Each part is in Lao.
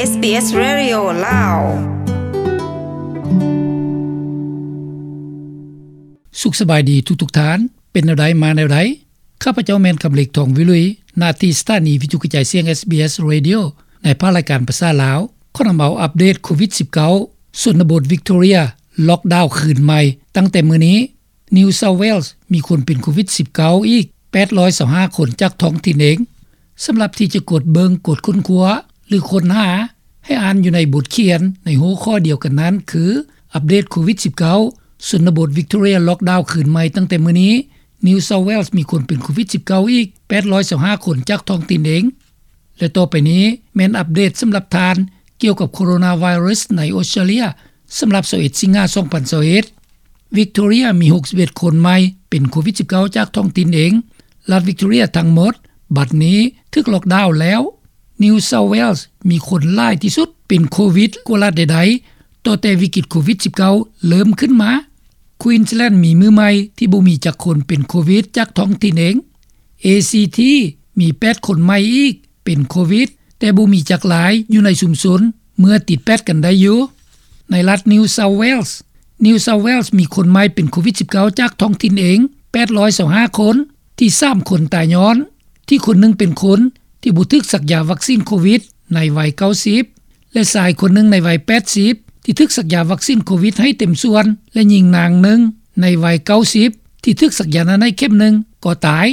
ເອສບີເອສ ເຣດິໂອ ລາວ. ສຸກສະບາຍດີທຸກໆທ່ານ. ເປັນແນວໃດມາແນວໃດ? ຂ້າພະເຈົ້າແມ່ນຄຳເລັກ ທອງວິລຸຍ, ໜ້າທີ່ສະຖານີວິທະຍຸກະຈາຍສຽງ ເອສບີເອສ ເຣດິໂອ ໃນພາກລາຍການພາສາລາວ ຂໍນຳເອົາອັບເດດໂຄວິດສິບເກົ້າ ຊົນນະບົດວິກໂຕເຣຍ ລັອກດາວຄືນໃໝ່ຕັ້ງແຕ່ມື້ນີ້. New South Wales ມີຄົນເປັນໂຄວິດສິບເກົ້າອີກແປດຮ້ອຍຊາວຫ້າຄົນຈາກທ້ອງຖິ່ນເອງ. ສຳລັບທີ່ຈະກົດເບິ່ງ, ກົດຄົ້ນຄວ້າ ຫຼື ຄົ້ນຫາ, ໃຫ້ອ່ານຢູ່ໃນບົດຂຽນໃນຫົວຂໍ້ດຽວກັນນັ້ນ ຄື ອັບເດດໂຄວິດສິບເກົ້າ ຊົນນະບົດວິກໂຕເຣຍ ລັອກດາວຄືນໃໝ່ຕັ້ງແຕ່ມື້ນີ້. New South Wales ມີຄົນເປັນໂຄວິດສິບເກົ້າອີກແປດຮ້ອຍຊາວຫ້າຄົນຈາກທ້ອງຖິ່ນເອງ. ແລະ ຕໍ່ໄປນີ້ແມ່ນອັບເດດສຳລັບທ່ານ ກ່ຽວກັບໂຄໂຣນາໄວຣັສໃນອົດສະຕຣາເລຍ ສຳລັບຊາວເອັດສິງຫາສອງພັນຊາວເອັດ. ວິກໂຕເຣຍມີຫົກສິບເອັດຄົນໃໝ່ເປັນໂຄວິດສິບເກົ້າຈາກທ້ອງຖິ່ນເອງ. ລັດວິກໂຕເຣຍທັງໝົດບັດນີ້ຖືກລັອກດາວແລ້ວ. New South Wales ມີຄົນຫຼາຍທີ່ສຸດເປັນໂຄວິດກວ່າລັດໃດໆ ຕໍ່ແຕ່ວິກິດໂຄວິດສິບເກົ້າເລີ່ມຂຶ້ນມາ. Queensland ມີມື້ໃໝ່ທີ່ບໍ່ມີຈັກຄົນເປັນໂຄວິດຈາກທ້ອງຖິ່ນເອງ. ACT ມີແປດຄົນໃໝ່ອີກເປັນໂຄວິດ ແຕ່ບໍ່ມີຈັກລາຍຢູ່ໃນຊຸມຊົນ ເມື່ອຕິດແປດກັນໄດ້ຢູ່. ໃນລັດ New South Wales, New South Wales ມີຄົນໃໝ່ເປັນໂຄວິດສິບເກົ້າຈາກທ້ອງຖິ່ນເອງແປດຮ້ອຍຊາວຫ້າຄົນ, ທີ່ສາມຄົນຕາຍຍ້ອນທີ່ຄົນໜຶ່ງເປັນຄົນທີ່ບໍ່ຖືກສັກຢາວັກຊີນໂຄວິດໃນໄວເກົ້າສິບ ແລະ ຊາຍຄົນໜຶ່ງໃນໄວແປດສິບ ທີ່ຖືກສັກຢາວັກຊີນໂຄວິດໃຫ້ເຕັມສ່ວນ ແລະ ຍິງນາງໜຶ່ງໃນໄວເກົ້າສິບ ທີ່ຖືກສັກຢານັ້ນໃຫ້ເຂັມໜຶ່ງກໍຕາຍ.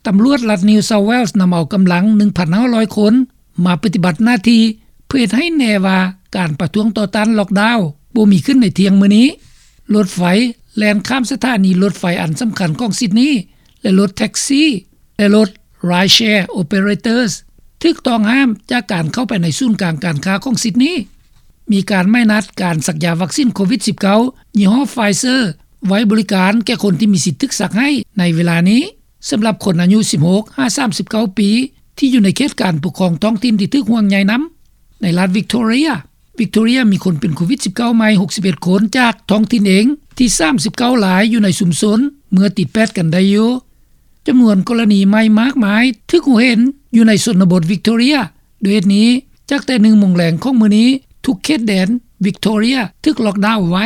ຕຳຫຼວດລັດ New South Wales ນຳເອົາກຳລັງໜຶ່ງພັນຫ້າຮ້ອຍຄົນມາປະຕິບັດໜ້າທີ່ ເພື່ອເຮັດໃຫ້ແນ່ວ່າການປະທ້ວງຕໍ່ຕ້ານລັອກດາວບໍ່ມີຂຶ້ນໃນທ່ຽງມື້ນີ້. ລົດໄຟແລ່ນຂ້າມສະຖານີລົດໄຟອັນສຳຄັນຂອງຊິດນີ ແລະ ລົດແທັກຊີ ແລະ ລົດ Rideshare Operators ຖືກຕ້ອງຫ້າມຈາກການເຂົ້າໄປໃນສູນກາງການຄ້າຂອງຊິດນີ. ມີການໝາຍນັດການສັກຢາວັກຊີນໂຄວິດສິບເກົ້າ ຍີ່ຫໍ້ Pfizer ໄວ້ບໍລິການແກ່ຄົນທີ່ມີສິດຖືກສັກໃຫ້ໃນເວລານີ້. ສຳລັບຄົນອາຍຸສິບຫົກຫາສາມສິບເກົ້າປີ ທີ່ຢູ່ໃນເຂດການປົກຄອງທ້ອງຖິ່ນທີ່ຖືກຫ່ວງໃຍນຳ. ໃນລັດ Victoria, Victoria ມີຄົນເປັນໂຄວິດສິບເກົ້າໃໝ່ຫົກສິບເອັດຄົນຈາກທ້ອງຖິ່ນເອງ ທີ່ສາມສິບເກົ້າລາຍຢູ່ໃນຊຸມຊົນເມື່ອຕິດແປດກັນໄດ້ຢູ່. ຈຳນວນກໍລະນີໃໝ່ມາກມາຍຖືກຮູ້ເຫັນຢູ່ໃນຊົນນະບົດ Victoria. ດ້ວຍເຫດນີ້, ຈາກແຕ່ໜຶ່ງໂມງແລງຂອງມື້ນີ້, ທຸກເຂດແດນ Victoria ຖືກລັອກດາວໄວ້.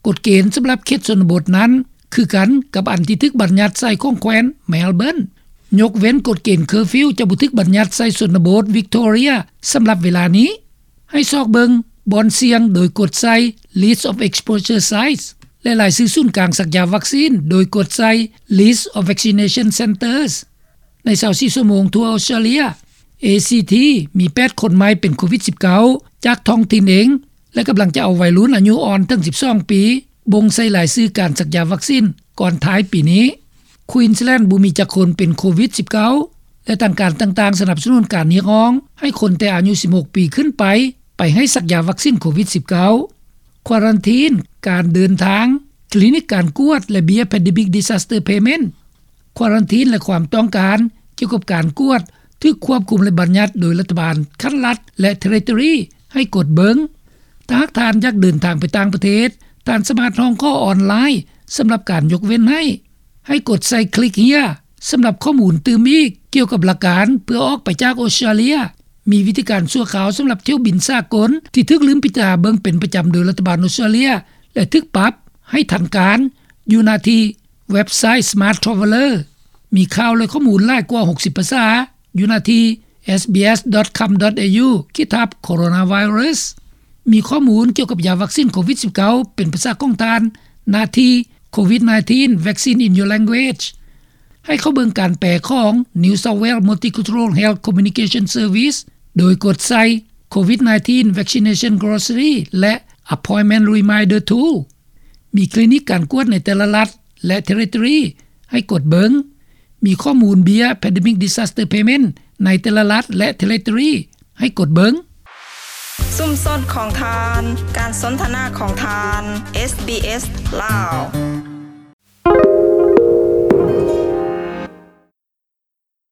ກົດເກນສຳລັບເຂດຊົນນະບົດນັ້ນຄືກັນກັບອັນທີ່ຖືກບັນຍັດໃຊ້ຂອງແຂວນ Melbourne. ຍົກເວັ້ນກົດເກນ curfew ຈະບໍ່ຖືກບັນຍັດໃສ່ຊົນນະບົດ Victoria ສຳລັບເວລານີ້. ໃຫ້ຊອກເບິ່ງບ່ອນສ່ຽງໂດຍກົດໃສ່ List of Exposure Sites ແລະ ລາຍຊື່ສູນກາງສັກຢາວັກຊີນໂດຍກົດໃສ່ List of Vaccination Centres. ໃນຊາວສີ່ຊົ່ວໂມງທົ່ວອົດສະຕຣາເລຍ, ACT ມີແປດຄົນໃໝ່ເປັນໂຄວິດສິບເກົ້າ ຈາກທ້ອງຖິ່ນເອງ ແລະ ກຳລັງຈະເອົາໄວລຸ້ນອາຍຸອ່ອນເຖິງສິບສອງປີ ບົ່ງໃສ່ລາຍຊື່ການສັກຢາວັກຊີນກ່ອນທ້າຍປີນີ້. Queensland ບໍ່ມີຈັກຄົນເປັນໂຄວິດສິບເກົ້າ ແລະ ທາງການຕ່າງໆສະໜັບສະໜູນການຮຽກຮ້ອງໃຫ້ຄົນແຕ່ອາຍຸສິບຫົກປີຂຶ້ນໄປ ໄປໃຫ້ສັກຢາວັກຊີນໂຄວິດສິບເກົ້າ. ຄວາຣັນທີນ, ການເດີນທາງ, ຄລີນິກການກວດ ແລະ ເບ້ຍ Pandemic Disaster Payment. ຄວາຣັນທີນ ແລະ ຄວາມຕ້ອງການກ່ຽວກັບການກວດ ຖືກຄວບຄຸມ ແລະ ບັນຍັດໂດຍລັດຖະບານຂັ້ນລັດ ແລະ Territory ໃຫ້ກົດເບິ່ງ. ຖ້າຫາກທ່ານຢາກເດີນທາງໄປຕ່າງປະເທດ, ທ່ານສາມາດຮ້ອງຂໍອອນລາຍສຳລັບການຍົກເວັ້ນໃຫ້. ໃຫ້ກົດໃສ່ Click Here ສຳລັບຂໍ້ມູນຕື່ມອີກກ່ຽວກັບຫຼັກການເພື່ອອອກໄປຈາກອົດສະຕຣາເລຍ. ມີວິທີການຊົ່ວຄາວສຳລັບຖ້ຽວບິນສາກົນທີ່ຖືກລືມພິຈາລະນາເບິ່ງເປັນປະຈຳໂດຍລັດຖະບານອົດສະຕຣາເລຍ ແລະ ຖືກປັບໃຫ້ທັນການ ຢູ່ໜ້າທີ່ເວັບໄຊ Smart Traveller. ມີຂ່າວ ແລະ ຂໍ້ມູນຫຼາຍກວ່າຫົກສິບພາສາ ຢູ່ໜ້າທີ່ sbs.com.au/coronavirus. ມີຂໍ້ມູນກ່ຽວກັບຢາວັກຊີນໂຄວິດສິບເກົ້າ ເປັນພາສາຂອງທ່ານ ໜ້າທີ່ COVID nineteen Vaccine in Your Language. ໃຫ້ເຂົ້າເບິ່ງການແປຂອງ New South Wales Multicultural Health Communication Service ໂດຍກົດໃສ່ COVID nineteen Vaccination Glossary ແລະ Appointment Reminder Tool. ມີຄລີນິກການກວດໃນແຕ່ລະລັດ ແລະ Territory ໃຫ້ກົດເບິ່ງ. ມີຂໍ້ມູນເບ້ຍ Pandemic Disaster Payment ໃນແຕ່ລະລັດ ແລະ Territory ໃຫ້ກົດເບິ່ງ. ຊຸມຊົນຂອງທ່ານ, ການສົນທະນາຂອງທ່ານ, ເອສບີເອສ ລາວ.